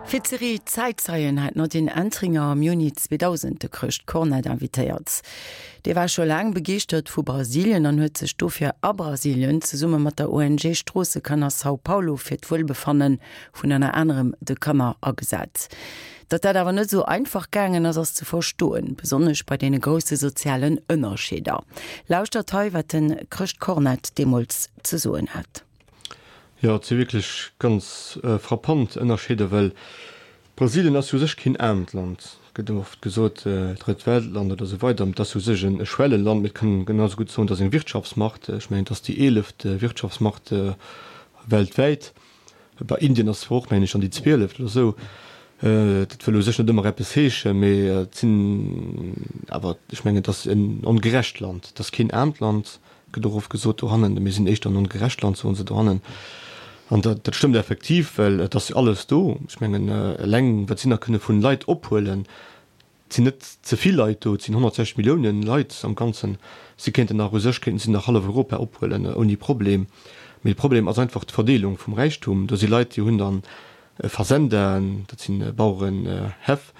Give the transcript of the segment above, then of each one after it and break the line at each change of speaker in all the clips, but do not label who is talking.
Fir d'Serie Zäitzeien hat d'Nadine Entringer am Juni 2000 de Chrëscht Cornett invitéiert. Dee war scho laang begeeschtert vu Brasilien an huet sech dofir a Brasilien zesumme mat der ONG Stroossekanner São Paulo fir d'Wuelbefanne vun ënner anerem de Kanner agesat. Datt dat awer net esou einfach gaangen ass, ass ze verstoen, besonnesch bei deene grousse sozialen Ënnerscheeder. Lauschtert hei, wat de Chrëscht Cornett deemools ze soen hat.
Jo, et si wierklech ganz frappant Ënnerscheeder, well Brasilien ass jo u sech keen aarmt Land. Et gëtt ëmmer oft gesot, Drëtt Weltland oder esou weider, mee et ass u sech e Schwelleland. Mee et kann een genau esou gutt soen, et ass eng Wirtschaftsmacht. Ech mengen, et ass déi eeleft Wirtschaftsmacht weltwäit. Bei Indien ass zwar och, mengen ech, an déi zwieleft oder esou. Dat wëll u sech net ëmmer eppes heeschen, mee et sinn awer, ech mengen, et ass en ongerecht Land. Et ass keen aarmt Land. Gëtt och oft gesot dohannen, mir sinn éischter en ongerecht Land, soen se dohannen. An dat, dat stëmmt effektiv, well et ass jo alles do. Ech mengen, eleng wat si nach kënne vun Leit ophuelen, et sinn net ze vill Leit do, et sinn 160 Milliounen Leit am Ganzen, si kéinten nach, u sech kéinten si nach hallef Europa ophuelen ouni Problem. Mee de Problem ass einfach d'Verdeelung vum Räichtum. Do si Leit, déi hunn dann Fazendaen, dat si Bauerenhäff,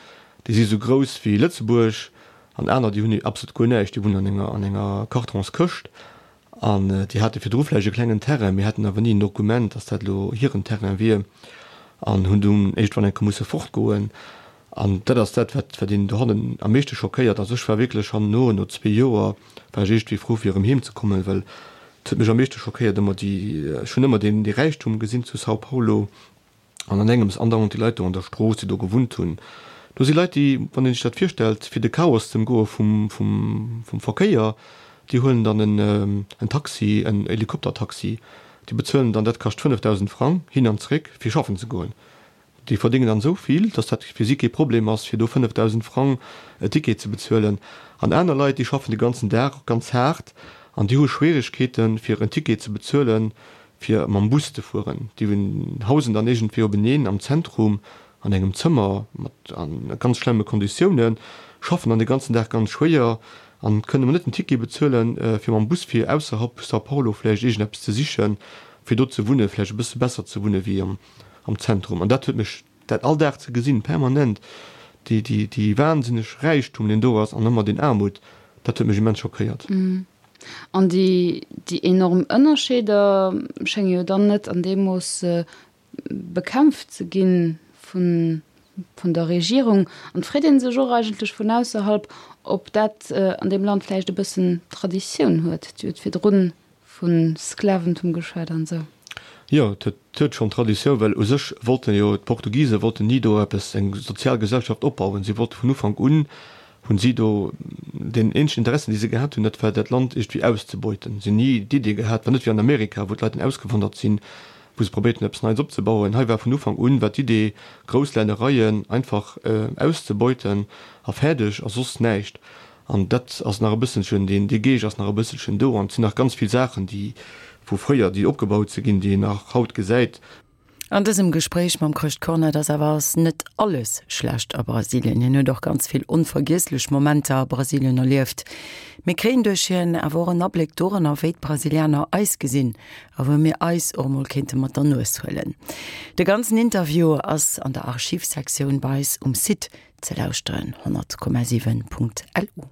déi si sou grouss wéi Lëtzebuerg, An aner, déi hunn absolut guer näischt, déi wunnen an enger, an enger Kartonskëscht an déi hate virdru vläicht e klengen Terrain, mee haten awer ni en Dokument, dass dat elo hiren Terrain wier an hunn dunn iergendwann eng Kéier musse fortgoen. An dat ass dat, wat, wat een dohannen am meeschte schockéiert. Also ech war wierklech herno, no zwee Joer, war ech iergendwéi frou fir erëm heem ze kommen, well et huet mech am meeschte schockéiert ëmmer déi, ech hunn ëmmer deen, dee Räichtum gesinn zu São Paulo, An an engems andauernd déi Leit do an der Strooss, déi do gewunnt hunn. Do si Leit, déi, wann een sech dat virstellt, fir de Chaos ze ëmgoe vum, vum, vum Verkéier, déi huelen dann en, en Taxi, en Helikoptertaxi, déi bezuelen dann, dat kascht 5.000 Frang hin an zréck, fir schaffen ze goen. Déi verdéngen dann esou vill, datt dat fir si kee Problem ass, fir do 5.000 Frang e Ticket ze bezuelen. An aner Leit, déi schaffen de ganzen Dag ganz haart an déi hu Schwieregkeeten, fir en Ticket ze bezuelen, fir mam Bus ze fueren. Déi hausen dann iergendwéi openeen am Zentrum an engem Zëmmer mat a ganz schlemme Konditiounen, schaffen dann de ganzen Dag ganz schwéier an kënnen emol net den Ticket bezuelen, fir mam Bus fir ausserhalb São Paulo vläicht iergendeppes ze sichen, fir do ze wunnen, vläicht e bësse besser ze wunne wéi am Zentrum. An dat huet mech, dat all Dag ze gesinn, permanent, déi, déi, déi wahnsinneg Räichtum, deen do ass, an ëmmer deen Aarmut, dat huet mech immens schockéiert.
An déi enorm Ënnerscheeder schénge jo dann net an deem Mooss bekämpft ze gi vun der Regierung. An et freet ee sech och eigentlech vun ausserhalb, ob dat an deem Land vläicht e bëssen Traditioun huet. Dir hutt virdrun vu Sklaventum geschwat an esou.
Jo, et huet schonn Traditioun, well u sech wollten jo d'Portugise wollten ni do eppes, eng sozial Gesellschaft opbauen. Si wollte vun Ufank un hunn si do deen eenzegen Interessen, déi se gehat hunn, dat war dat Land iergendwéi auszebeuten. Si hunn ni d'Idee gehat, war net wéi an Amerika, wou d'Leit dann ausgewandert sinn, wou se probéiert hunn, eppes Neits opzebauen. Hei war vun Ufank un war d'Idee, grouss Lännereien einfach auszebeuten a fäerdeg a soss näischt. An dat ass nach e bësselchen, deen, dee Geescht ass nach e bësselchen do. An et sinn nach ganz vill Saachen, déi vu fréier, déi opgebaut si ginn, déi een nach haut gesäit.
An dësem Gespréich mam Chrëscht Cornett ass awer ass net alles schlecht a Brasilien. Hien huet och ganz vill onvergiesslech Momenter a Brasilien erlieft. Mir kréien duerch hien awer och en Abléck doranner, wéi d'Brasilianer eis gesinn a wou mir eis och emol kéinte mat der Nues huelen. De ganzen Interview ass an der Archivsektioun bei eis um Site ze lauschteren, 100,7.lu.